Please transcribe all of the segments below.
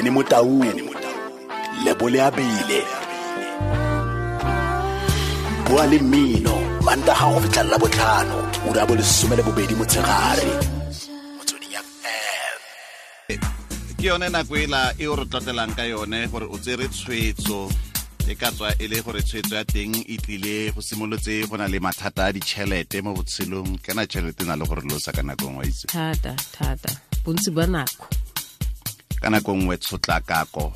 Benny Motaung, Lebole Abile. Bua le mmino Mantaga go fitlha la botlhano, ura bo 12 motshegare. Motsweding FM. Ke yone nako ela e o re tlotlelang ka yone gore o tsere tshwetso, e ka tswa e le gore tshwetso ya teng e tlile go simolotse go na le mathata a ditšhelete mo botshelong. Kana tšhelete e na le gore losa ka nako nngwe, itse. Thata, thata. Bontsi ba nako. Ka nako nngwe tshotlakako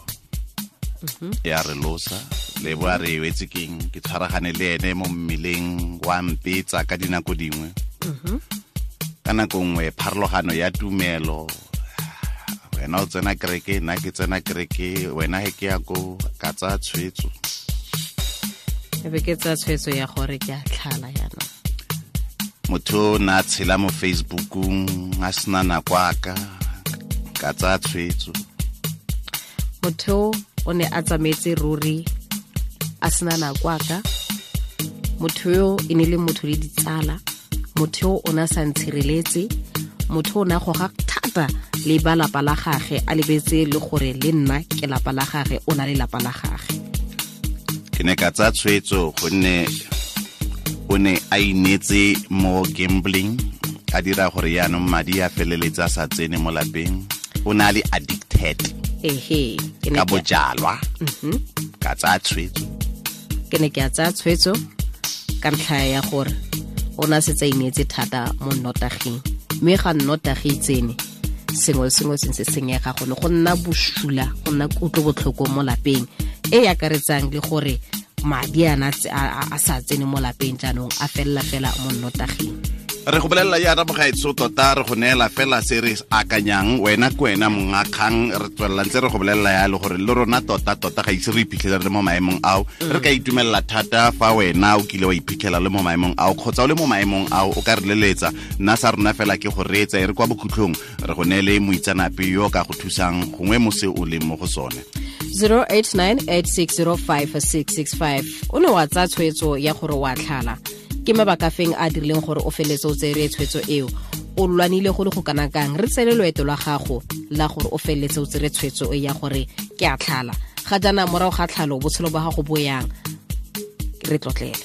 ya re losa. Le bo a re wetse keng, ke tshwaragane le ene mo mmeleng wa mpetsa ka dinako dingwe. Ka nako nngwe pharologano ya tumelo, wena o tsena kereke, nna ke tsena kereke, wena he ke ya ko, ka tsaya tshwetso. E be ke tsaya tshwetso ya gore ke a tlhala jaanong. Motho o ne a tshela mo Facebookong a sena nako a ka, ka tsaya tshwetso. Motho o ne a tsamaetse ruri a sena nako a ka. Motho yo e ne le motho le ditsala. Motho yo o ne a sa ntshireletse. Motho o ne a goga thata le ba lapa la gage, a lebetse le gore le nna ke lapa la gage, o na le lapa la gage. Ke ne ka tsaya tshwetso gonne o ne a inetse mo gambling, a dira gore yaanong madi a feleletse a sa tsene mo lapeng. O ne a le addicted. Ehe, ke ne Ka ke- bojalwa. Ka tsaya tshwetso. Ke ne ke a tsaya tshwetso ka ntlha ya gore o ne a setse a ineetse thata mo nnotaging, mme ga nnotagi e tsene, sengwe le sengwe se ntse senyega, gone go nna bosula, go nna kutlobotlhoko mo lapeng, e e akaretsang le gore madi a na a sa tsene mo lapeng jaanong, a felela fela mo nnotaging. Re go bolelela jaana mogaetsho, tota re go neela fela se re akanyang, wena ke wena monga kgang. Re tswelela ntse re go bolelela yalo gore le rona tota tota ga ise re iphitlhele re le mo maemong ao. Re ka itumelela thata fa wena o kile wa iphitlhela le mo maemong ao, kgotsa o le mo maemong ao, o ka re leletsa. Nna sa rona fela ke go reetsa, e re kwa bokhutlhong re go neele moitseanape yo o ka go thusang gongwe mo se o leng mo go sone. 0898605665. O ne wa tsaya tshwetso ya gore wa tlhala, ke mabaka feng a dirileng gore o feletse o tsere tshwetso eo? O lwanile go le go kana kang? Re tsele loeto lwa gago la gore o feletse o tsere tshwetso e ya gore ke a tlhala. Ga jaana morago ga tlhalo botshelo ba gago bo yang? Re tlotlele.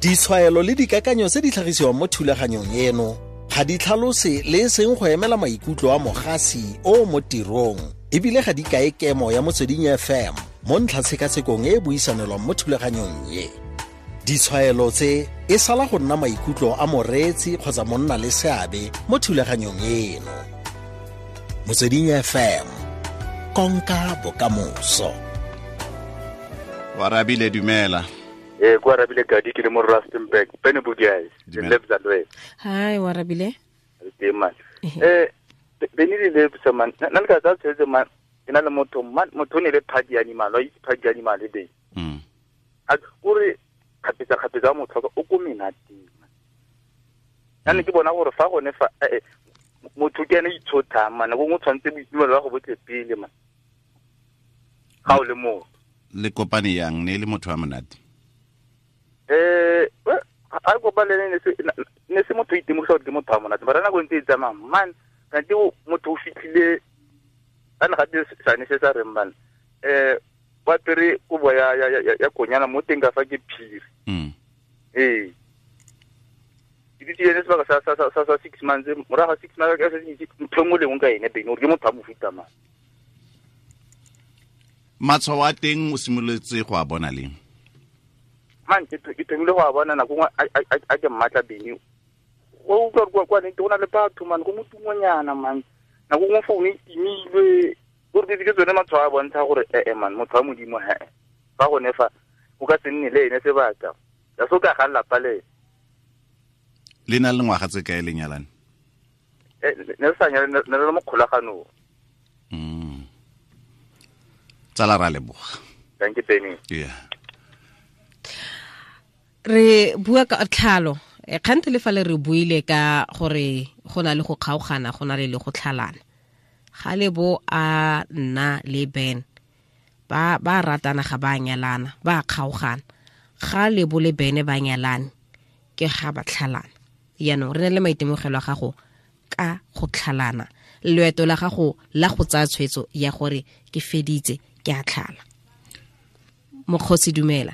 Ditshwaelo le dikakanyo tse di tlhagisiwang mo thulaganyong eno ga di tlhalose le e seng go emela maikutlo a mogasi o mo tirong, ebile ga di kae kemo ya Motsweding FM mo ntlhatshekasekong e e buisanelwang mo thulaganyong e. Ditshwaelo tse e sala go nna maikutlo a moreetsi kgotsa monna le seabe mo thulaganyong eno. Motsweding FM, konka bokamoso. Warabile, dumela. Ko Arabile Gadi, ke le mo Rustenburg. Bene Bugiai, le Dumela. Lebza Lwe. Hi, Warabile. Le teng, man. Bene le Lebza, man. Nna le ka tsaya tshwetso, man. Ke na le motho, man, motho o ne le party animal, wa itse party animal e be. A kore kgapetsa kgapetsa motho o ko menateng. Nna ke bona gore fa gone fa, motho ke ene itshothang, man. Nako nngwe o tshwanetse boitumelo ba go botle pele, man. Ga o le motho. Le kopane yang, ne e le motho wa monate? A kopane le ene, ne se motho o itemogisa gore ke motho wa monate, mara nako e ntse e tsamaya, man, kante motho o fitlhile, a ne gape sane se sa reng, man, wa apere kobo ya konyana mo teng ka fa ke phiri. Ke ditse ene sebaka sa 6 months, morago ga 6 months, ka se itse ntho e nngwe le nngwe ka ene, Bene, gore ke motho wa mofuta mang. Matshwao a teng o simolotse go a bona leng? Man, ke thomile go a bona nako nngwe a ke mmatla, Bene. O utlwa gore kwa nnete go na le batho, man, go motungonyana, man. Nako nngwe phone e timilwe. Gore ke tsone matshwao a bontsha gore, man, motho wa Modimo, he. Fa gone fa, o ka se nne le ene sebaka. Ya se o ka ga lelapa le ene. Le na le ngwaga tse kae le nyalane? Ne re sa nyalane, ne re le mo kgolaganong. Tsala, ra leboga. Thank you, Benny. Yeah. Re bua ka tlhalo. Kgante le fa le re buile ka gore go na le go kgaogana, go na le le go tlhalana. Ga le bo a nna le Ben, ba ratana ga ba nyalana, ba kgaogana. Ga le bo le Ben ba nyalane, ke ga ba tlhalana. Jaanong re na le maitemogelo a gago ka go tlhalana. Loeto la gago la go tsaya tshwetso ya gore ke feditse ke a tlhala. Mokgosi dumela.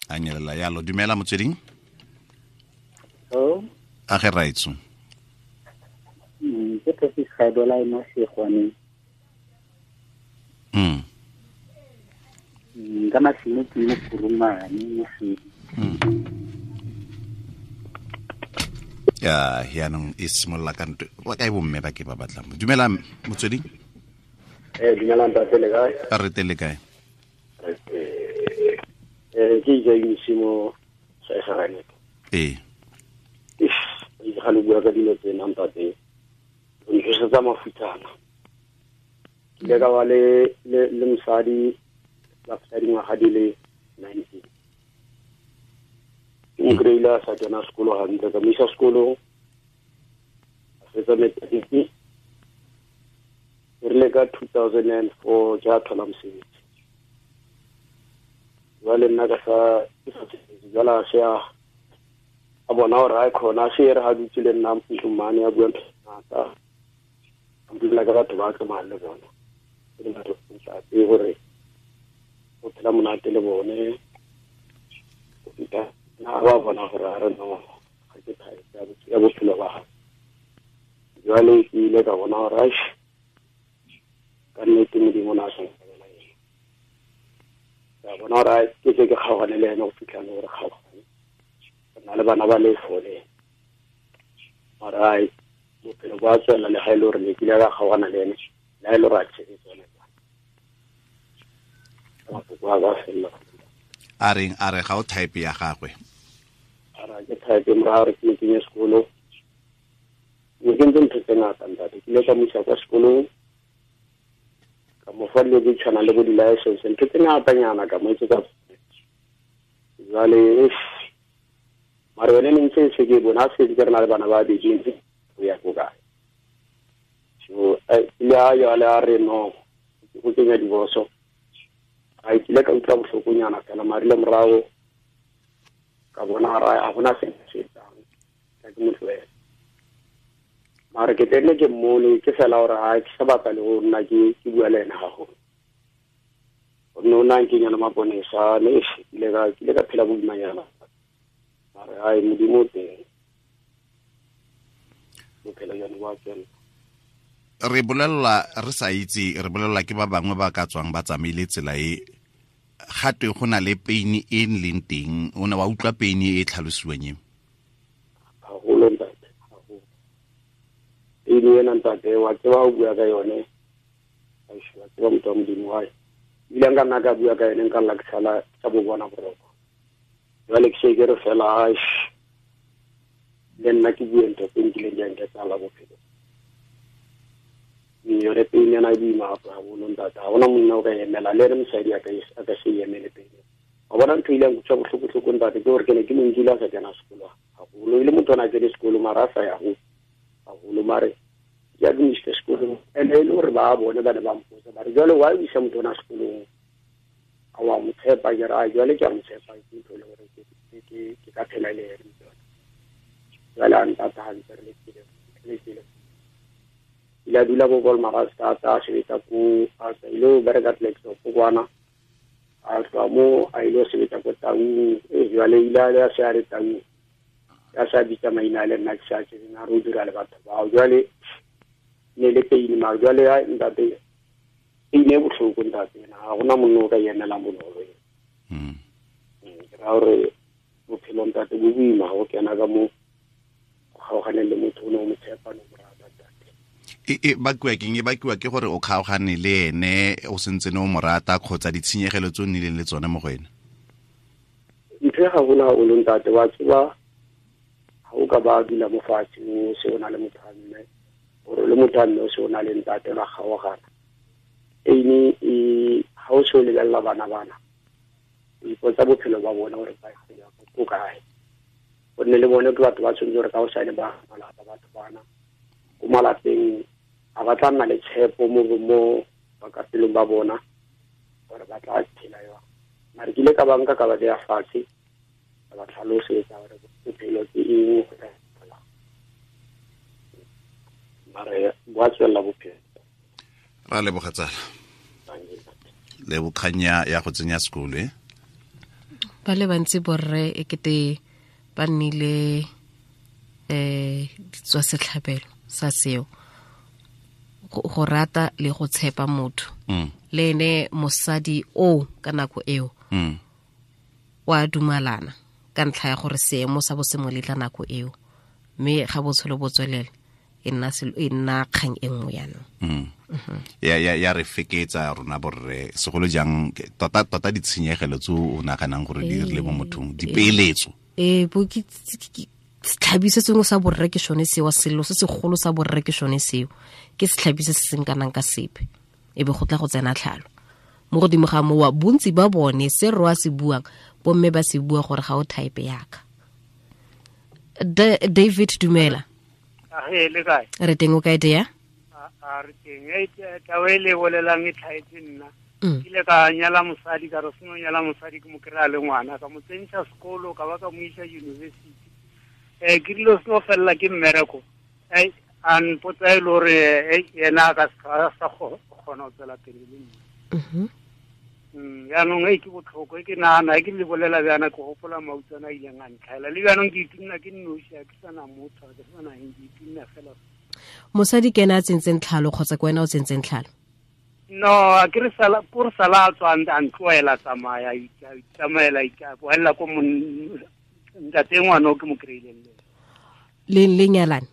A nyelela yalo. Dumela motsweding. Oh. A ge raitso. Ke Tosis Gadola mo Segwaneng. Ka masimo ke mo Kurumane mo Sedi. Ya yaanong e simolola ka ntwe ba kae bomme ba ke ba batlang. Dumela motsweding. Dumela ntate, le kae? A re tele kae? Ke itse mo sa Egerane. Ee. Ga le bua ka dilo tsena ntate, o ntsosetsa mafutsana. Ke ile ka ba le mosadi la feta dingwaga di le 19. Ke mo kry-ile a sa kena sekolo gantle, ka mo isa sekolong, a fetsa matric. E rile ka 2004 ke a thola mosebetsi. Jwale nna ka sa ke sa sebetse, jwale a se a bona gore a kgona, a se e re ga dutse le nna ntlong mane a bua ntho tse ngata. A mpolelela ka batho ba tsamayang le bona, e le batho ntate gore o phela monate le bone. Go feta nna ba bona gore a re no, ga ke type ya bophelo ba gagwe. Jwale ke ile ka bona gore aish, ka nnete Modimo o ne a sa nkabela ena. Ka bona gore ai, ke tle ke kgaogane le ene go fitlha le gore kgaogane. Re na le bana ba le four le ene. Mara ai, bophelo bo a tswelela le ga e le gore ne ke ile ka kgaogana le ene, le ga e le gore a tshetse tsone. Mafoko a ka felela. A reng? A re ga o type ya gagwe? A re ke type morago re ke mo kenye sekolo. Ne ke ntse ntho tse ngata ntate. Ke ile ka mo isa kwa sekolong, ka mo fa dilo tse tshwanang le bo di-license, ntho tse ngatanyana ka mo etsetsa. Jwale mara yone ne ntse se ke bona se ke re na le bana ba babedi ntse go ya ko kae. So ile a jwale a re no, go kenya divorce. A kile ka utlwa bohlokonyana fela, mara ile morago ka bona gore a gona se se etsang, ka ke mo tlohela. Mara ke tenne ke mmone ke fela gore ha ke sa batla le go nna ke bua le ena gagolo. Gonne o na nkenya le maponesa, ne ke ile ka phela boimanyana. Mara ai Modimo o teng, bophelo jone bo a tswelela. Re bolella re sa itse, re bolella ke ba bangwe ba ka tswang ba tsamaile tsela e gatwe go na le pain e leng teng. O ne wa utlwa pain e tlhalosiwang e? Haholo ntate, haholo. Pain ena ntate, wa tseba o bua ka yone, wa tseba motho wa Modimo wa hae. Ebile nka nna ka bua ka yone, nka lla ke sala ka bo bona boroko. Jwale ke se ke re fela, aish, le nna ke bue ntho tse nkileng di a nketsala bophelo. Yone pain ena e boima haholo ntate, ha hona monna o ka emela, le ene mosadi a ka se emele pain. Wa bona ntho e ileng kutlwa bohloko-hloko ntate, ke gore ke ne ke mo nkile a sa kena sekolo haholo. E le motho o ne a kene sekolo mara a sa ya haholo, mare ke a ke mo isitse sekolong. And e le gore ba bone ba ne ba mpotsa ba re jwale why o isa motho ona sekolong, a wa mo tshepa? Ke re ai jwale ke a mo tshepa, ke ntho e le gore ke ka phela le ene. Jwale a ntata hantle re le tsele. Ile a dula ko Wolmaranstad, a sebetsa ko, a ile ho bereka Klerksdorp kwana. A tloha mo a ile ho sebetsa ko Taung. Jwale ile a se a re Taung, a sa bitsa maina a le nna ke sa tsebeng, a re o dira le batho bao. Jwale ne le pain, mara jwale ai ntate, pain e bohloko ntate ena, ha hona monna o ka emelang bonolo ena. Ke raya hore bophelo ntate bo boima ha o kena ka mo kgaoganeng le motho o ne o mo tshepa, no mo rata ntate. E bakiwa keng? E bakiwa ke gore o kgaogane le ene o sentse ne o mo rata, kgotsa ditshenyegelo tse o nnileng le tsone mo go ene? Ntho e gaholo haholo ntate, wa tseba ha o ka ba dula mo fatshe o se o na le motho a mme, gore le motho a mme o se o na le ntate la kgaogana. Ene e ha o se o lebella bana bana, o ipotsa bophelo ba bona gore ba ya ko kae. Gonne le bone ke batho ba tshwanetse gore ka hosane ba malapa, batho bana ko malapeng a ba tla nna le tshepo mo bakapelong ba bona gore ba tla phela jwang. Mara ke ile ka ba nka ka ba beya fatshe, ka ba tlhalosetsa gore bophelo ke eng, go tla etsahalang. Mara bo tswela bophelo. Ra leboga tsala. Le bokganya ya go tsenya sekolo e. Ba le bantsi borre e kete ba nnile ditswa setlhabelo sa seo. Go rata le go tshepa motho. Le ene mosadi o ka nako eo. Wa dumalana ka ntlha ya gore seemo sa bo se mo letla nako eo. Mme ga botshelo bo tswelela e nna kgang e nngwe jaanong. Ya re feketsa rona borre segolo jang tota tota ditshenyegelo tse o naganang gore di rile mo mothong dipeeletso. Bo ke setlhabi se sengwe sa borre ke sone seo, selo se segolo sa borre ke sone seo, ke setlhabi se se seng kanang ka sepe, e be go tla go tsena tlhalo mo godimo ga mowa. Bontsi ba bone se re a se buang bomme ba se bua gore ga o type yaka. David dumela. Le kae? Re teng, o kae tea? A re teng. Taba e le bolelang e tlhaetse nna. Ke ile ka nyala mosadi, ka re seno nyala mosadi ke mo kry-a le ngwana, ka mo tsentšha sekolo, ka ba ka mo isa university. Ke dilo seno felela ke mmereko. A mpotsa e le gore yena a ka sa kgona go tswela pele le nna. Jaanong e ke botlhoko, e ke nagana e ke le bolela bjana ke gopola mautswana a ileng a ntlhaela. Le bjanong ke itumna ke nnoši, a ke sana motho, a ke sana eng, ke itumna fela. Mosadi ke ena a tsentseng tlhalo kgotsa ke wena o tsentseng tlhalo? No, a ke re sala ko re sala a tswa a ntloela tsamaya, itsamaela boela ko ntate ngwana o ke mo kry-ileng le le nyalane.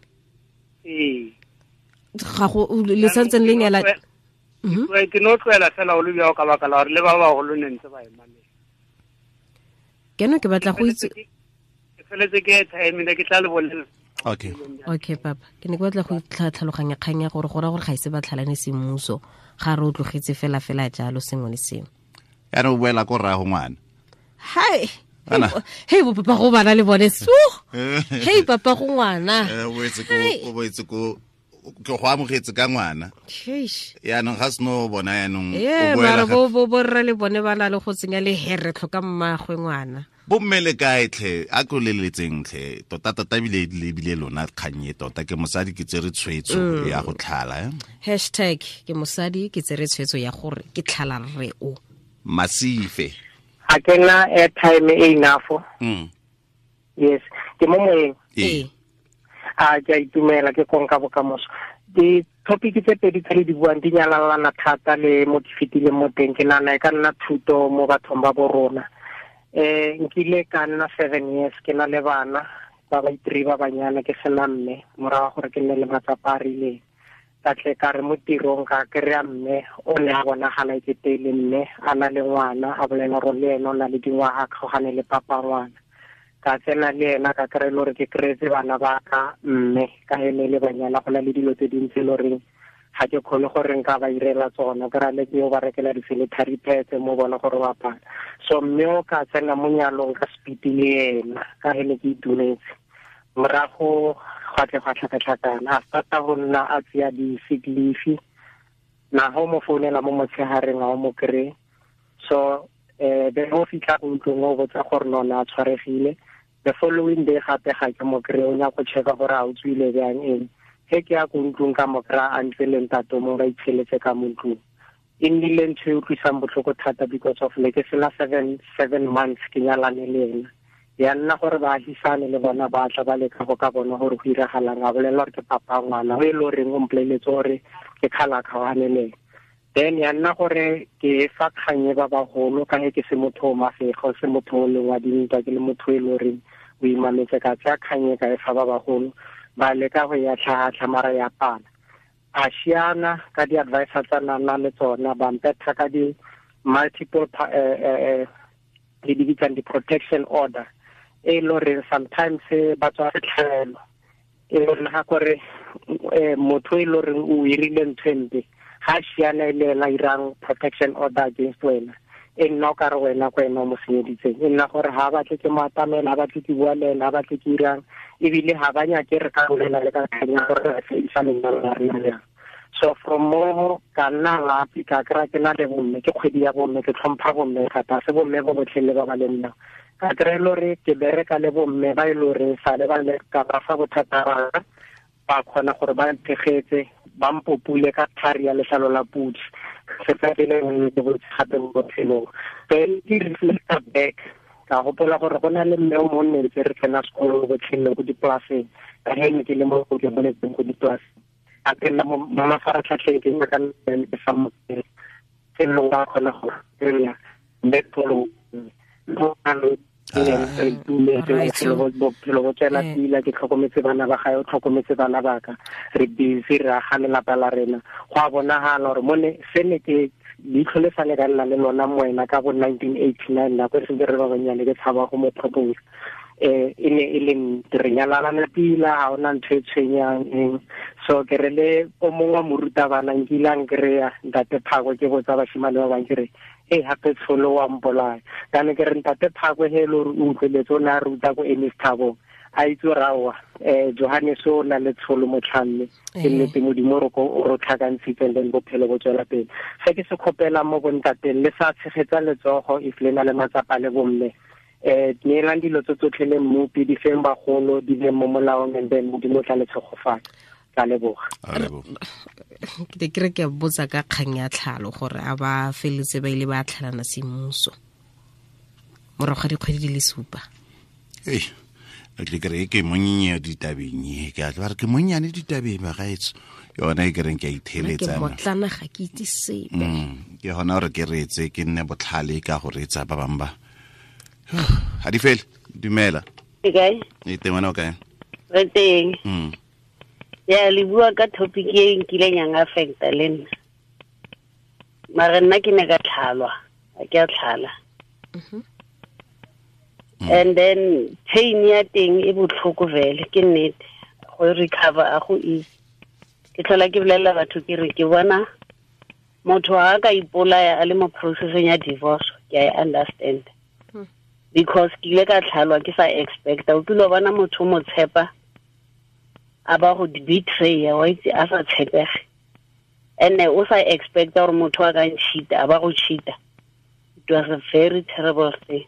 Ee. Ga go le santseng le nyalane. Ke no tloela fela o le bjao ka baka la gore le ba bagolo ne ntse ba ema le. Ke no ke batla go itse. Ke feletse ke airtime ne ke tla le bolela. Okay. Okay papa, ke ne ke batla go tlhaloganya kgang ya gore go ra gore ga ise ba tlhalane semmuso, ga re o tlogetse fela fela jalo sengwe le sengwe. Yana o boela ko rrago ngwana. Hai. Hey bo papa go bana le bone su. Hey papa go ngwana. O boetse ko ke go amogetse ka ngwana. Yaanong ga seno bona yaanong o boela bo borra le bone ba na le go tsenya le here tlhoka mmagwe ngwana. Bomme le kae tlhe, a ko leletseng tlhe, tota tota ebile lebile lona kgang e tota ke mosadi ke tsere tshwetso ya go tlhala. Hashtag ke mosadi ke tsere tshwetso ya gore ke tlhala rre o. Masife. A ke na airtime e enough. Yes, ke mo moyeng. A ke a itumela ke konka bokamoso. Di-topic tse pedi tse le di buang di nyalalana thata le mo ke fetileng mo teng, ke nagana e ka nna thuto mo bathong ba bo rona. Nkile ka nna 7 years ke na le bana ba ba itri ba banyana ke sena mme, morago gore ke nne le matsapa a rileng. Ka tle ka re mo tirong ka kry-a mme o ne a bonagala e kete le mme a na le ngwana, a bolela gore le ene o na le dingwaga a kgaogane le papa ngwana. Ka tsena le ena ka kry-e le gore ke kry-etse bana ba ka mme ka ene le banyana, go na le dilo tse dintsi e le goreng ga ke kgone gore nka ba irela tsona, ke ra le ke yo ba rekela di-sanitary pads mo bona gore ba apara. So mme o ka tsena mo nyalong ka speed le ena ka ene ke itumetse. Morago gwa tle gwa tlhakatlhakana, a starta go nna a tseya di-sick leave, na ga o mo founela mo motshegareng ga o mo kry-e. So be o fitlha ko ntlong o botsa gore nona a tshwaregile. The following day gape ga ke mo kry-e, o nyaka go checka gore a o tswile bjang eng. He ke ya ko ntlong ka mo kry-a a ntse le ntate mo ba itsheletse ka mo ntlong. E nnile ntho e utlwisang botlhoko thata because of ne ke sena 7 months ke nyalane le ena. Ya nna gore baagisane le bona ba tla ba leka go ka bona gore go iragalang, a bolela gore ke papa ngwana o e le goreng o mpoleletse gore ke kgala kgaogane le ena. Then ya nna gore ke fa kgang e ba bagolo ka ge ke se motho o mafego, se motho o leng wa dintwa, ke le motho e le goreng o imametse, ka tsaya kgang e ka e fa ba bagolo, ba leka go ya tlhatlha mara ya pala. A siana ka di-advisor tsa nna le tsona, ba mpetha ka di-multiple le di bitsang di-protection order, e le goreng sometimes ba tswa setlhabelo, e le goreng ga kore motho e le goreng o irile ntho e mpe, ga siana e le ena irang protection order against wena, e nna o ka re wena ko ena o mo senyeditseng, e nna gore ga batle ke mo atamela, ga batle ke bua le ena, ga batle ke irang, ebile ga ba nyake re ka bolela le ka kganya gore re fedisa lenyalo la rena jang. So from mo ka nna lapi ka kry-a ke na le bomme, ke kgwedi ya bomme, ke tlhompha bomme thata, se bomme bo botlhe le ba ba le nna. Ka kry-e le gore ke bereka le bomme ba e le goreng sale ba le ka ba fa bothata ba ka, Ba kgona gore ba nthegetse, ba mpopule ka thari ya letlalo la pudi. Se tsa pele ke botse gape mo botshelong. Then ke reflecta back, ka gopola gore go na le mme o mongwe ne ntse re tsena sekolo botlhele ko dipolaseng, ka ge ne ke le mo ke boletseng ko dipolaseng. A ke nna mo mafaratlhatlheng ke nyaka ke sa mo felong ka kgona go kry-a mme pholo bophelo bo tswela pila, ke tlhokometse bana ba gae, o tlhokometse bana ba ka, re busy re aga lelapa la rena. Go a bonagala gore mone se ne ke leitlho le sale ka nna le lona moena ka bo 1989, nako e sentse re ba bannyane, ke tshaba go mo propose. E ne e le nnete, re nyalalana pila, ga ona ntho e tshwenyang eng. So ke re le o mongwe wa morutabana nkile a nkry-a ntate Phakwe, ke botsa bashimane ba bangwe ke re, e gape tsholo wa mpolaya. Kana ke re ntate Phakwe he e le gore o utlweletse, o ne a ruta ko Ernest Thabong, a itse gore aowa, Johannes o na le tsholo motlhamme, ke nnete Modimo o re tlhakantshitse, and then bophelo bo tswela pele. Se ke se kgopelang mo bontateng, le sa tshegetsa letsogo if le na le matsapa le bomme, neelang dilo tse tsotlhe le mmopi, di feng bagolo, di beng mo molaong, and then Modimo o tla le tshegofatsa. Ka leboga. Ke te ke re ke botsa ka kgang ya tlhalo gore a ba feletse ba ile ba tlhalana semmuso morago ga dikgwedi di le 7. Ei, a tle ke re ke monnye ditabeng e, ke a tla re ke monnyane ditabeng bagaetsho. Yona e ke reng ke a itheletsa. Ke motlana ga ke itse sepe. Ke gona gore ke reetse, ke nne botlhale ka go reetsa ba bangwe ba. Ha di fele, dumela. Ke kae? E teng wena o kae? Re teng. Ya, le bua ka topic e nkileng ya affecta le nna. Mara nna ke ne ka tlhalwa, ha ke a tlhala. And then pain ya teng e botlhoko vele, ke nnete. Go recover a go easy. Ke tlhola ke bolelela batho ke re ke bona motho ha ka ipolaya a le mo processeng ya divorce, ke a e understand. Because ke ile ka tlhalwa ke sa expecta. O kile wa bona motho o mo tshepa, a ba go betray, wa itse a sa tshepege. And o sa expecta gore motho a ka ncheata, a ba go cheata. It was a very terrible thing.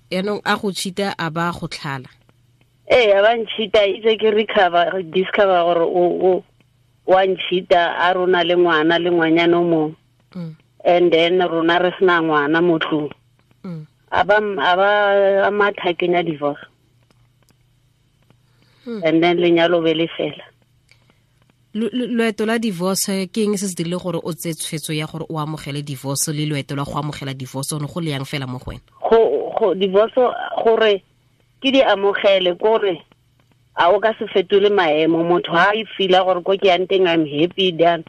Yaanong a go cheata, a ba go tlhala. Ee, a ba ncheata, itse ke recover, discover gore o wa ncheata, a rona le ngwana le ngwanyana o mongwe. And then rona re sena ngwana mo tlung. A ba a matha kenya divorce. And then lenyalo be le fela. Loeto la divorce ke eng se se dirile gore o tseye tshwetso ya gore o amogele divorce, le loeto la go amogela divorce one go le yang fela mo go wena? Go divorce gore ke di amogele kore a o ka se fetole maemo, motho ha e feel-a gore ko ke yang teng I'm happy then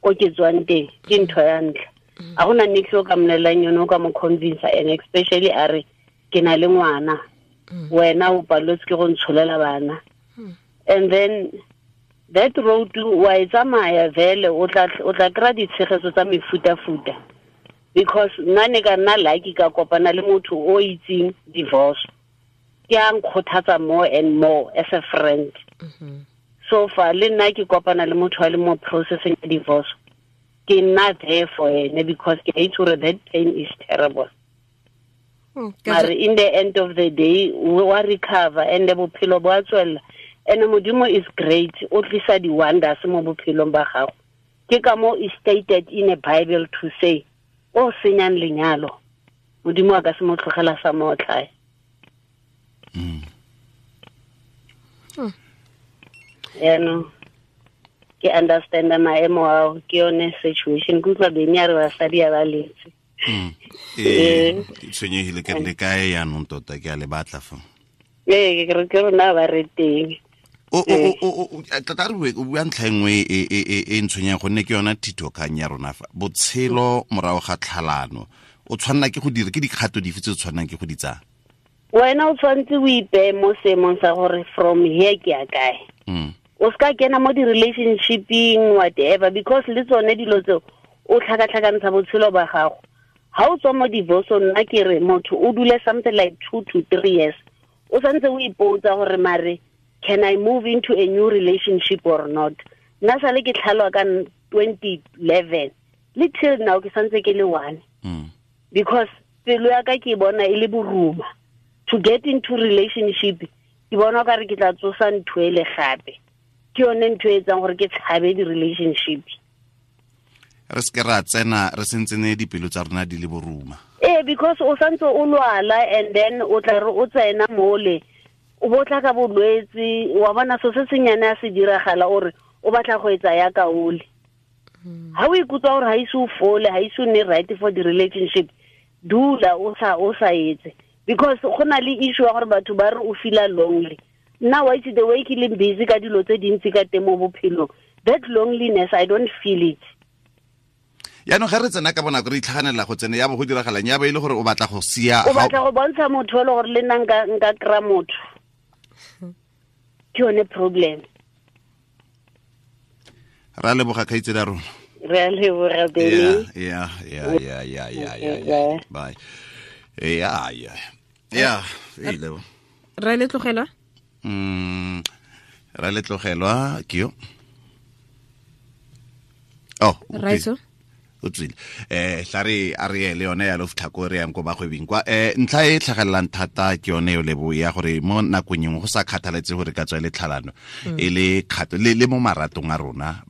ko ke tswang teng ke ntho ya ntlha. A gona nix o ka mmolelang yone, o ka mo convince, and especially a re ke na le ngwana, wena o paletswe ke go ntsholela bana. And then that road wa e tsamaya vele, o tla kry-a ditshegetso tsa mefutafuta. Because nna ne ka nna lucky ka kopana le motho o itseng divorce, ke a nkgothatsa more and more as a friend. So far le nna ke kopana le motho a le mo processing ya divorce, ke nna there for ene because ke itse gore that pain is terrible. Mare in the end of the day wa recover and bophelo bo a tswella. And Modimo is great, o tlisa di wonders mo bophelong ba gago. Ke ka mo is stated in a Bible to say, o senyang lenyalo, Modimo a ka se mo tlogela sa mo otlhae. Yaanong ke understand maemo ao, ke yone situation. Ke utlwa Beny a re basadi a ba letse. Ke tshwenyegile ke re le kae yaanong tota, ke a le batla fa. Ee, ke re ke rona ba re teng. Tota re bue, o bua ntlha e nngwe e ntshwenyang gonne ke yona thitokgang ya rona fa. Botshelo morago ga tlhalano, o tshwanela ke go dira, ke dikgato dife tse o tshwanelang ke go di tsaya? Wena o tshwanetse o ipeye mo seemong sa gore from here ke ya kae. O seka kena mo di-relationshipeng, whatever, because le tsone dilo tseo o tlhakatlhakantsha botshelo ba gago. Ha o tswa mo divorce-ong, nna ke re motho o dule something like 2 to 3 years, o santse o ipotsa gore mare can I move into a new relationship or not. Nna sale ke tlhalwa ka 2011 le till now ke santse ke le one. Because pelo ya ka ke bona e le boruma. To get into relationship Ke bona ka re ke tla tsosa ntho e le gape. Ke yone ntho e etsang gore ke tshabe di-relationship. Re se ra tsena re sentsene dipelo tsa rona di le boruma. Because o santse o lwala and then o tla re o tsena mole o botla ka bolwetse wa bona so se senyane a se diragala ore o batla go etsa ya kaole. Ha o ikutlwa gore ha ise o fole, ha ise o nne right for the relationship, dula o sa etse. Because go na le issue ya gore batho ba re o feel lonely. Nna wa itse the way ke leng busy ka dilo tse dintsi ka teng mo bophelong, that loneliness I don't feel it. Yaanong ga re tsena ka bonako re itlhaganela go tsena ya bo go diragalang ya ba ile gore o batla go sia, o batla go bontsha motho le gore le nna nka kry-a motho. Ke yone problem. Ra leboga kgaitsedi ya rona. Re a leboga Benny. Yeah. Bye. Yeah. Ra le tlogelwa? Ra le tlogelwa ke yo. Oh, Raitso? O tswile. Tla re a re le yone ya lo fitlha ko re yang ko bagwebing kwa. Ntlha e tlhagelelang thata ke yone yo lebo ya gore mo nakong engwe go sa kgathaletse gore ka tswa le tlhalano e le kgato le mo maratong a rona,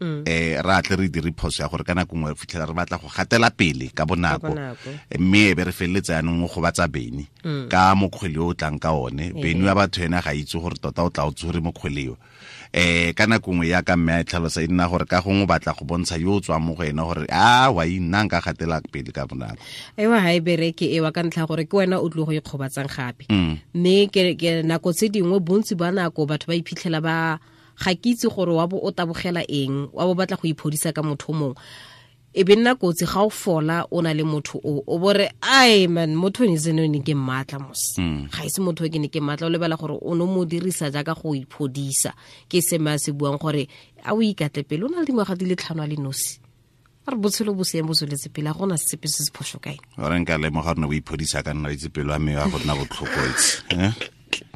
ra tle re dire phoso ya gore ka nako nngwe re fitlhela re batla go gatela pele ka bonako, mme e be re feleletsa yanong go batsa Beni ka mokgwele o tlang ka one. Beni wa batho ena ga itse gore tota o tla o tsore mokgwele o. Ka nako nngwe ya ka mme a tlhalosa e nna gore ka gongwe o batla go bontsha yo o tswang mo go ena gore a wa nna nka gatela pele ka bonako. Ewa ha e bereke ewa ka ntlha gore ke wena o tlo go ikgobatsang gape. Mme ke nako tse dingwe bontsi ba nako batho ba iphitlhela ba ga ke itse gore wa bo o tabogela eng, wa bo batla go iphodisa ka motho mongwe. E be nna kotsi ga o fola o na le motho o bore ai man motho ne seno ne ke mmatla mos. Ga ise motho ke ne ke mmatla, o lebala gore o no mo dirisa jaaka go iphodisa. Ke se me a se buang gore a o ikatle pele o na le dingwaga di le 5 a le nosi. A re botshelo bo seeng bo tsweletse pele, a gona sepe se se phoso kae. Ore nka lemoga gore o iphodisa ka nna itse pelo ya me ya go nna botlhoko itse.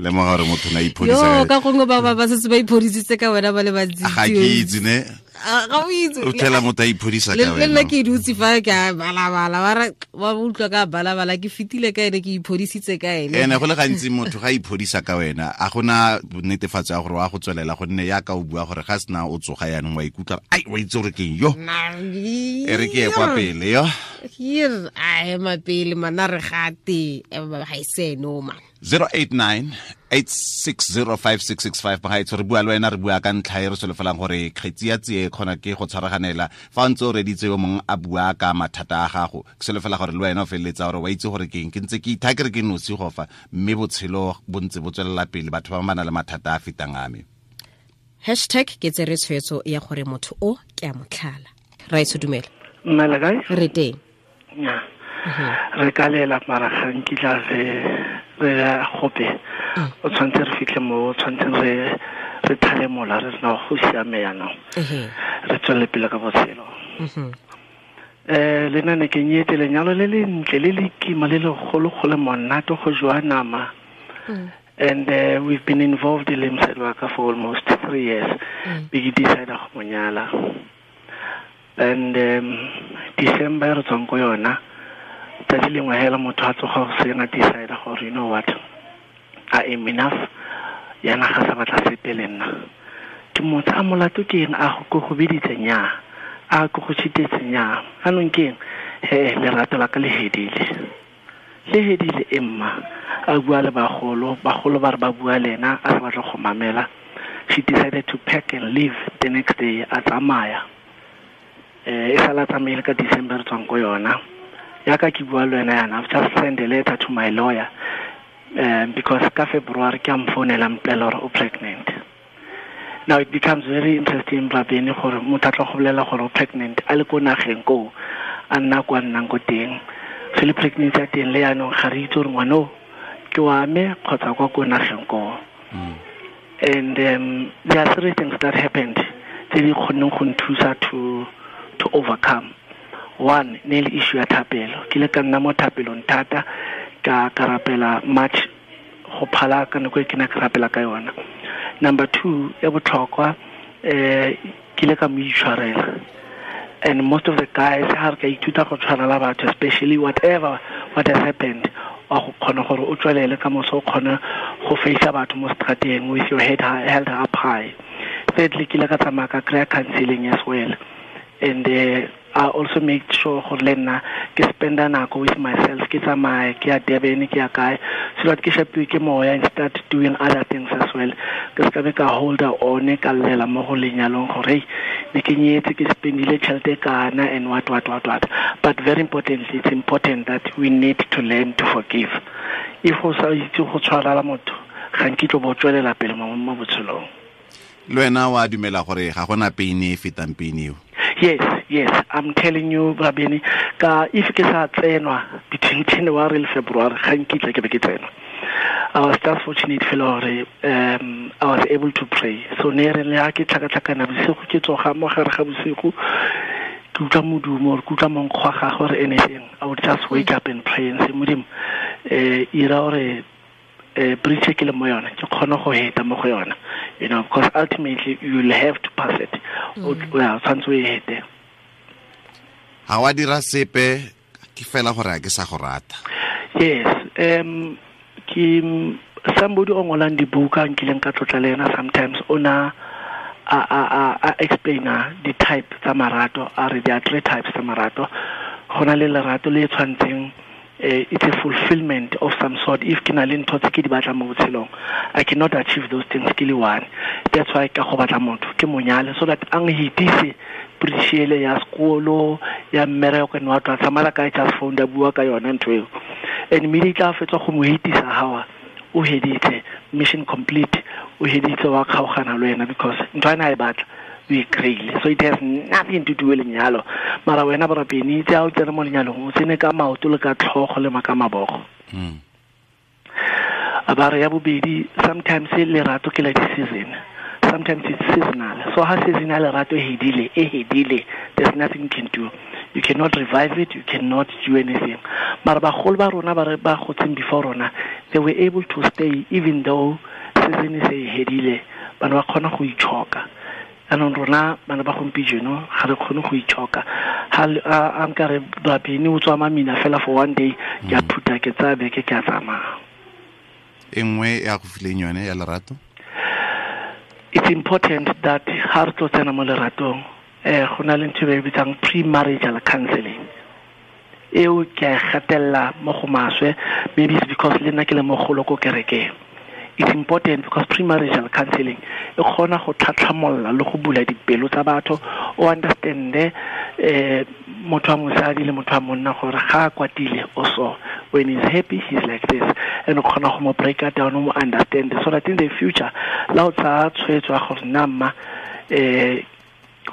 Lemoga gore motho na iphodisa. Yo ka gongwe ba setse ba iphodisitse ka wena ba le bantsi. Ga ke itse ne. Ga o itse. O tlhela motho a iphodisa ka wena. Le nna ke dutse fa ke a balabala ba re ba utlwa ka balabala ke fetile ka ene ke iphodisitse ka ene. Ene go le gantsi motho ga iphodisa ka wena a gona netefatso ya gore wa go tswelela gonne ya ka o bua gore ga sena o tsoga yanong wa ikutlwa ai wa itse gore ke yo. E re ke ye kwa pele yo. Here a ema pele mana re gate ga ise no man. 089-860-5665 bagaetsho re bua le wena re bua ka ntlha e re solofelang gore kgetsi ya tsie kgona ke go tshwaraganela fa o ntse o reditse yo mongwe a bua ka mathata a gago. Ke solofela gore le wena o feleletsa gore wa itse gore ke eng, ke ntse ke itha ke re ke nosi go fa, mme botshelo bo ntse bo tswelela pele, batho ba ba na le mathata a fetang a me. Hashtag ke tsere tshwetso ya gore motho o ke a motlhala. Raitso dumela. Mmela kae? Re teng. Nya. Re ka lela mara ga nkitla re gope o tshwanetse re fitlhe mo tshwanetseng re thale mola re sena go siame yanong, re tswelele pele ka botshelo. Le nna ne ke nyetse lenyalo le lentle le le kima le legolo-golo monate go jowa nama. And we've been involved le mosadi wa ka for almost 3 years. Be ke decide go mo nyala. And December re tswang ko yona, tsatsi lengwe hela motho a tsoga go seng a decide gore you know what, I am enough, yana ga sa batla sepe le nna. Ke motho a molato ke eng, a go go biditse nya, a go go chitetse nya, anong ke eng, he lerato la ka le hedile. Le hedile emma, a bua le bagolo, bagolo ba re ba bua le ena, a sa batla go mamela. She decided to pack and leave the next day, a tsamaya. E sala tsamaile ka December tswang ko yona. Yaka ke bua le wena yana, I've just sent a letter to my lawyer because ka February ke a mfounela mpolelela gore o pregnant. Now it becomes very interesting Rabene gore motho a tlo go bolela gore o pregnant a le ko nageng koo a nna kwa nnang ko teng. So le pregnancy ya teng le yanong ga re itse gore ngwana o ke wa me kgotsa kwa ko nageng koo. And there are three things that happened tse di kgonneng go nthusa to overcome. One, ne le issue ya thapelo. Ke ile ka nna mo thapelong thata, ka rapela much go phala ka nako e ke ne ke rapela ka yona. Number two, ya botlhokwa, ke ile ka mo itshwarela. And most of the guys ha re ka ithuta go tshwarela batho, especially whatever what has happened, Wa go kgona gore o tswelele ka moso o kgone go face batho mo strateng with your head held up high. Thirdly, ke ile ka tsamaya ka kry-a counseling as well, and I also make sure gore le nna ke spenda nako with myself, ke tsamaye ke ya Durban, ke ya kae, so that ke shapiwe ke moya and start doing other things as well. Ke se ka be ka holder one ka llela mo go lenyalong gore hey, ne ke nyetse, ke spendile tšhelete kana and what. But very importantly, it's important that we need to learn to forgive. If o sa itse go tshwarela motho, ga nkitlo bo tswelela pele mo botshelong. Le wena wa dumela gore ga gona pain e fetang pain eo? Yes, I'm telling you, Rabini, ka if ke sa tsenwa between January and February, ga nkitla ke be ke tsenwa. I was just fortunate fela gore I was able to pray. So ne re le ha ke tlhakatlhakana bosigo, ke tsoga mo gare ga bosigo, ke utlwa modumo or ke utlwa monkgo wa gagwe or anything, I would just wake up and pray and say, Modimo, ira gore bridge ke le mo yona, ke kgone go heta mo go yona, you know, because ultimately you will have to pass it. O tshwanetse o e hete. Ha wa dira sepe, ke fela gore a ke sa go rata. Yes, ke somebody o ngolang dibuka nkileng ka tlotla le ena sometimes, o na a explaina di-type tsa marato, a re there are three types tsa marato. Go na le lerato le tshwantseng, it's a fulfillment of some sort. If ke na le ntho tse ke di batlang mo botshelong, I cannot achieve those things ke le one. That's why ka go batla motho ke monyale, so that ang hitise bridge ya sekolo ya mmereko and what what. Samara ka just phone da bua ka yona ntho eo, and immediately a fetsa go mo hitisa hawa, o heditse, mission complete, o heditse wa kgaogana le wena, because ntho ena e batla o e kry-ile. So it has nothing to do with lenyalo. Mara wena borapeni, itse ha o tsene mo lenyalong, o tsene ka maoto le ka tlhogo le ka mabogo. A ba re ya bobedi, sometimes lerato ke la di-season, sometimes it's seasonal. So ha season ya lerato e hedile, there's nothing you can do. You cannot revive it, you cannot do anything. Mara bagolo ba rona ba ba gotseng before rona, they were able to stay even though season e se e hedile, bana ba kgona go itshoka. Anong rona bana ba gompieno ga re kgone go itshoka. Ha a nka re Rabini o tswa mamina fela for one day, ke a phuta ke tsaya beke ke a tsamaya. E nngwe ya go fileng yone ya lerato? It's important that ha re tlo tsena mo leratong, go na le ntho e ba e bitsang pre-marital counseling. Eo ke a e gatelela mo go maswe, maybe it's because le nna ke le mogolo ko kerekeng. It's important because premarital counseling e kgona go tlhatlhamolla le go bula dipelo tsa batho, o understande motho wa mosadi le motho wa monna gore ga a kwatile o so, when he's happy he's like this, and o kgona go mo break down, o mo understand, so that in the future la o tsaya tshwetso ya gore nna mma, ke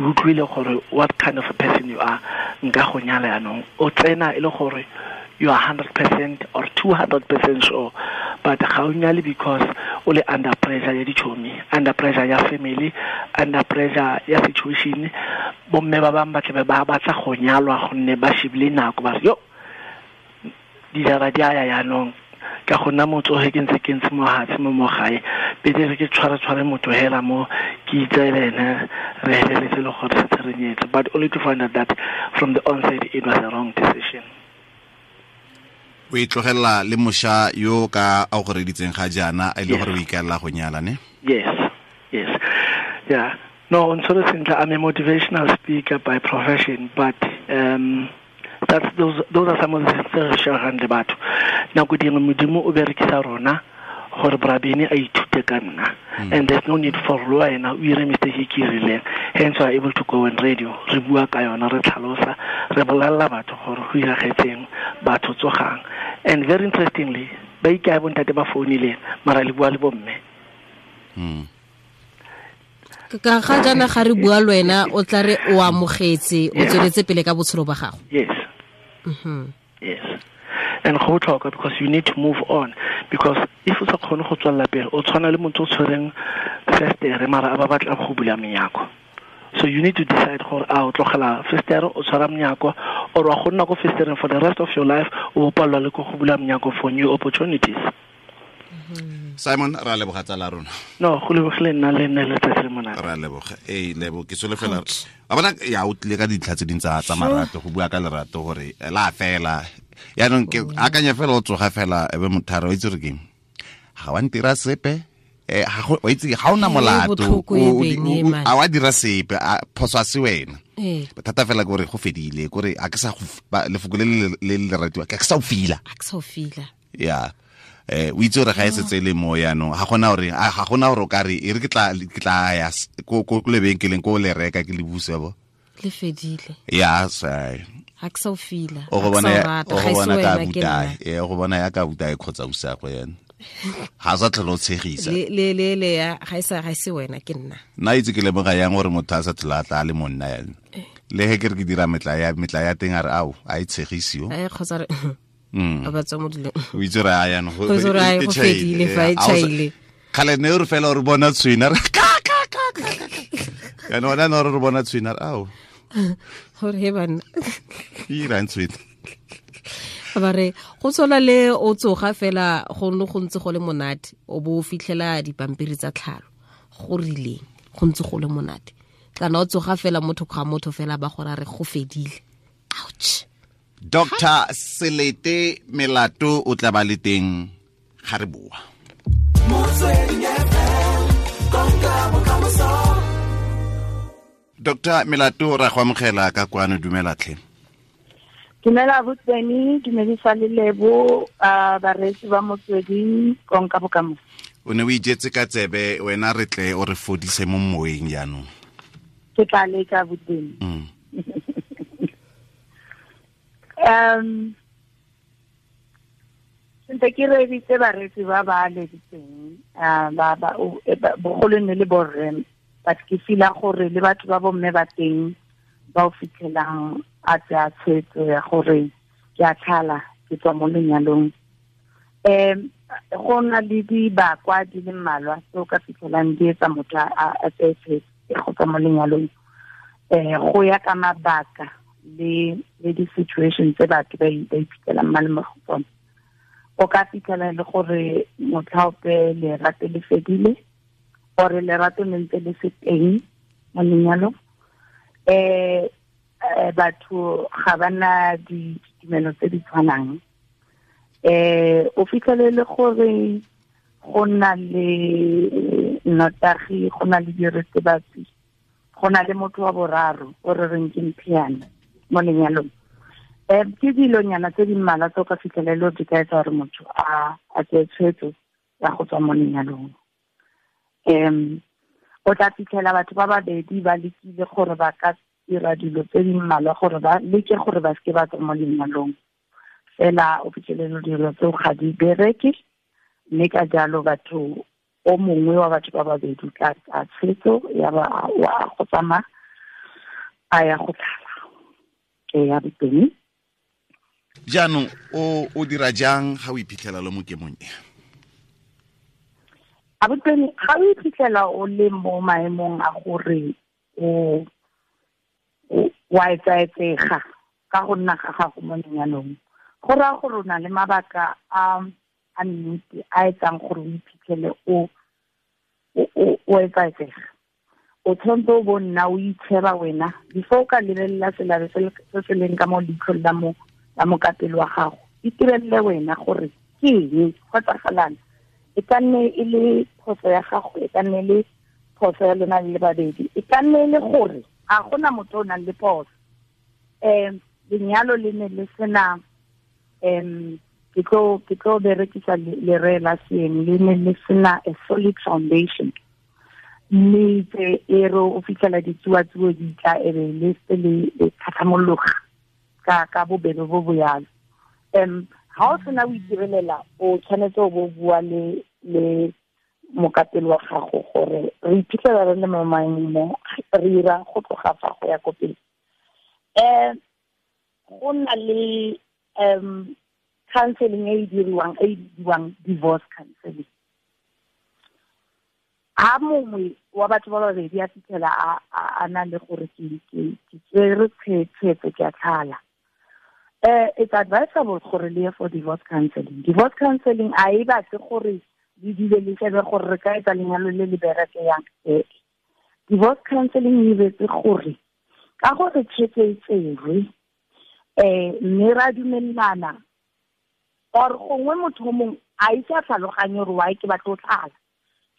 utlwile gore what kind of a person you are, nka go nyala yanong, o tsena e le gore you are 100% or 200% sure, but ga o nyale because o le under pressure ya ditšhomi, under pressure ya family, under pressure ya situation. Bomme ba bangwe ba tlabe ba batla go nyalwa gonne ba shebile nako, ba re yo dijara di a ya yanong, ka go nna motsoge ke ntse ke ntse mo hatshe mo mo gae, pele re ke tshware motho hela mo ke itse le ene, re heleletse le gore setse re nyetse, but only to find out that from the onset it was a wrong decision. O itlogela le mosha yo ka a go reditseng ga jaana, a ile gore o ikaelela go nyala, ne? Yes. Yeah. No, on sort of sentle, I'm a motivational speaker by profession, but that's those are some of the things re shareang le batho. Nako dingwe Modimo o berekisa rona gore Brabini a ithute ka nna, and there's no need for le wena o ire mistake e ke e rileng. Hence we are able to go on radio, re bua ka yona, re tlhalosa, re bolelela batho gore go iragetseng, batho tsogang. And very interestingly, ba ikae bontate ba founileng, mara le bua le bomme. Ka ga jaana ga re bua le wena, o tla re o amogetse, o tsweletse pele ka botshelo ba gago. Yes. Yes. And go botlhokwa because you need to move on, because if o sa kgone go tswelela pele, o tshwana le motho o tshwereng festere mara a ba batla go bula menyako. So you need to decide gore a o tlogela festere o tshwara menyako, or wa go nna ko festereng for the rest of your life, o palelwa le ko go bula menyako for new opportunities. Simon, ra leboga tsala rona. No, go lebogile nna le nne letsatsi le monate. Ra leboga. Ee, lebo ke solofela. A bona ya o tlile ka dintlha tse ding tsa marato, go bua ka lerato gore la fela. Yaanong ke akanya fela o tsoga fela ebe motharo o itse gore keng ga wa ntira sepe ga o itse ga ona molato a wa dira sepe phoso a se wena bothata fela ke gore go fedile kore a ke sa lefoko le le ratiwa ke sa o fila ya o itse gore ga e setse le mo yaanong ga gona gore ga gona gore o ka re e re ke tla ya ko lebenkeleng ko le reka ke le buse bo le fedile ya sai ga ke sa o fila o go bona ka buta e go bona ya ka buta e khotsa usa go yena ga sa tlhole o tshegisa le ya ga e se wena ke nna nna itse ke lemoga yang gore motho a sa tlhola a tla le monna yana le he ke re ke dira metla ya teng a re ao a e tshegisiwo kgotsa re ba tswa mo dilong o itse re a yana go fedile fa e tšhaile kgale ne re fela re bona tshwina re ka ka ka yana ona ne re bona tshwina ao gore he banna e irang tshwina ba re go tshwana le o tsoga fela go ne go ntse go le monate o bo o fitlhela dipampiri tsa tlhalo go rileng go ntse go le monate kana o tsoga fela motho ga motho fela ba gore re go fedile ouch. Dr. Selete Melato o tla ba le teng ga re boa. Dr. Melato ra go amogela ka kwano, dumela tlhe. Dumela botseni, dumedisa le Lebo, bareetsi ba Motsweding, konka bokamoso. O ne o ijetse ka tsebe wena re tle o re fodise mo moeng jaanong. Ke tla leka botseni. Sentse ke reeditse bareetsi ba ba leditseng ba bogolo ne le borre, but ke feel-a gore le batho ba bomme ba teng ba o fitlhelang a tsaya tshwetso ya gore ke a tlhala ke tswa mo lenyalong. Go na le dibakwa di le mmalwa tse o ka fitlhelang di etsa motho a tseye tshwetso ya go tswa mo lenyalong, go ya ka mabaka le di-situation tse batho ba iphitlhelang ba le mo go tsone. O ka fitlhela le gore motlhaope lerato le fedile ore lerato le ntse le se teng mo lenyalong. Batho ga ba na ditumelo tse di tshwanang. O fitlhele le gore go na le nnotagi, go na le diritibatsi, go na le motho wa boraro o re reng ke mphiana mo lenyalong. Ke dilonyana tse di mmalwa tse o ka fitlhelelo di ka etsa gore motho a tseye tshwetso ya go tswa mo lenyalong. O tla fitlhela batho ba babedi ba lekile gore ba ka dira dilo tse di mmalwa gore ba leke gore ba seke ba tswa mo lenyalong, fela o fitlhelelo dilo tseo ga di bereke, mme ka jalo batho o mongwe wa batho ba babedi tla tsaya tshwetso ya ba wa go tsamaya a ya go tlhala ya boteng. Jaanong o dira jang ga o iphitlhela le mo kemong e? A boteng ga o iphitlhela o le mo maemong a gore o wa etsaetsega ka go nna ga gago mo lenyalong, go raya gore o na le mabaka a nnete a etsang gore o iphitlhele o etsaetsega. O tshwanetse o bo nna o itsheba wena before o ka lebelela selabe se se leng ka mo leitlhong la mokapelo wa gago. Itirelele wena gore ke eng go etsagalang. E ka nne e le phoso ya gago, e ka nne e le phoso ya lona le babedi, e ka nne e le gore ga gona motho o nang le phoso. Lenyalo le ne le sena ke tlo berekisa lere la seeng, le ne le sena a solid foundation. Mme tse e re o fitlhela ditsuatsuo di tla e be le se le tlhatlhamologa ka bobebe bo bo yalo. Ga o sena o itirelela, o tshwanetse o bo bua le mokapelo wa gago gore re iphitlhela re le mo maemong re ira go tloga fa go ya ko pele. Go na le counseling e e diriwang e bidiwang divorce counseling. Ha mongwe wa batho ba babedi a fitlhela a na le gore ke tsere tshwetso ke a tlhala, it's advisable gore le ye for divorce counseling. Divorce counseling a e batle gore le dule le shebe gore re ka etsa lenyalo le le bereke yang. Divorce counseling e betse gore ka gore tshwetso e tserwe, mme ra dumelana Or gongwe motho mongwe a itse a tlhaloganye gore why ke batla go tlhala.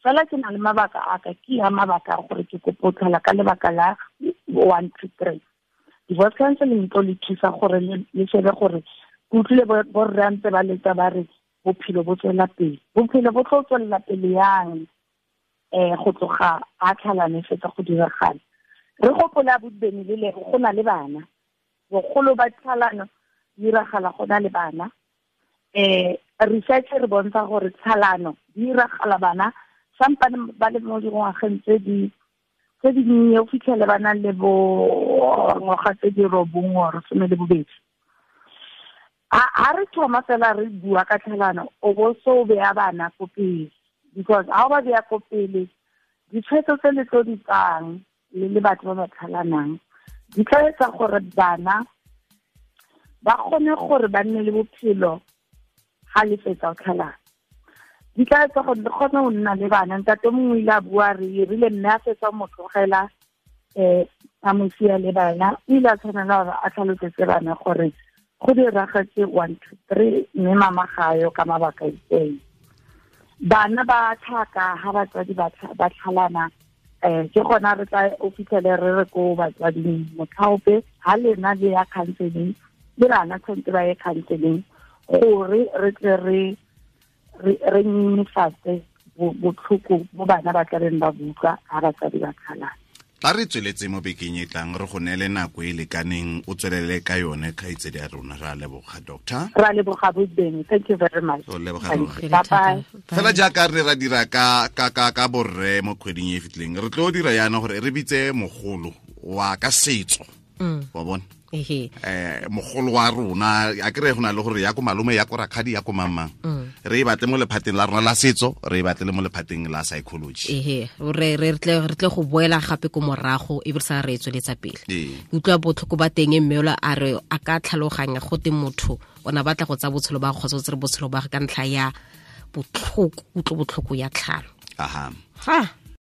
Fela ke na le mabaka a ka, ke ya mabaka a gore ke kopo tlhala ka lebaka la 1 2 3. Divorce counseling tlo le thusa gore le shebe gore ke utlwile borre a ntse ba letsa ba re bophelo bo tswela pele. Bophelo bo tlo tswela pele yang go tloga a tlhalane fetsa go diragala. Re gopola bobeni le le go na le bana. Bogolo ba tlhalano diragala go na le bana. Research re bontsha gore tlhalano diragala bana sampane ba le mo dingwageng tse di nnye o fitlhele ba na le bo ngwaga tse di 9 or 12. A re thoma fela re bua ka tlhalano o bo so beya bana ko pele, because ha o ba beya ko pele ditshwetso tse le tlo di tsang le batho ba ba tlhalanang di tla etsa gore bana ba kgone gore ba nne le bophelo ga le fetsa go tlhalana. Di tla etsa gore le kgone go nna le bana. Ntate mongwe ile a bua re rile mme a fetsa mo tlogela a mo sia le bana, o ile a tshwanela gore a tlhalosetse bana gore go diragetse 1 2 3 mme mama ga yo ka mabaka itseng. Bana ba tlhaka ha batswadi ba tlhalana ke gona re tla o fitlhele re re ko batswading motlhaope ha lena le ya counseling le bana tshwanetse ba ye counseling gore re tle re nyenyefatse botlhoko bo bana ba tla beng ba buka ha batswadi ba tlhalana. Tla re tsweletse mo bekeng e tlang re go neele nako e lekaneng o tswelele ka yone kgaitsedi ya rona. Ra leboga doctor. Ra leboga bobeng. Thank you very much. O leboga. Bye. Fela jaaka re ra dira ka borre mo kgweding e fitleng re tlo dira yana gore re bitse mogolo wa ka setso. Wa bona? Mogolo wa rona a kere go na le gore ya ko malome ya ko rakgadi ya ko mamang re e batle mo lephateng la rona la setso re e batle le mo lephateng la psychology. Re tle go boela gape ko morago e be sa re tsweletsa pele. Utlwa botlhoko ba teng mme ola a re a ka tlhaloganya go te motho ona batla go tsa botshelo ba kgotsa tse botshelo ba ka ntlha ya botlhoko utlo botlhoko ya tlhalo. Aha. Ha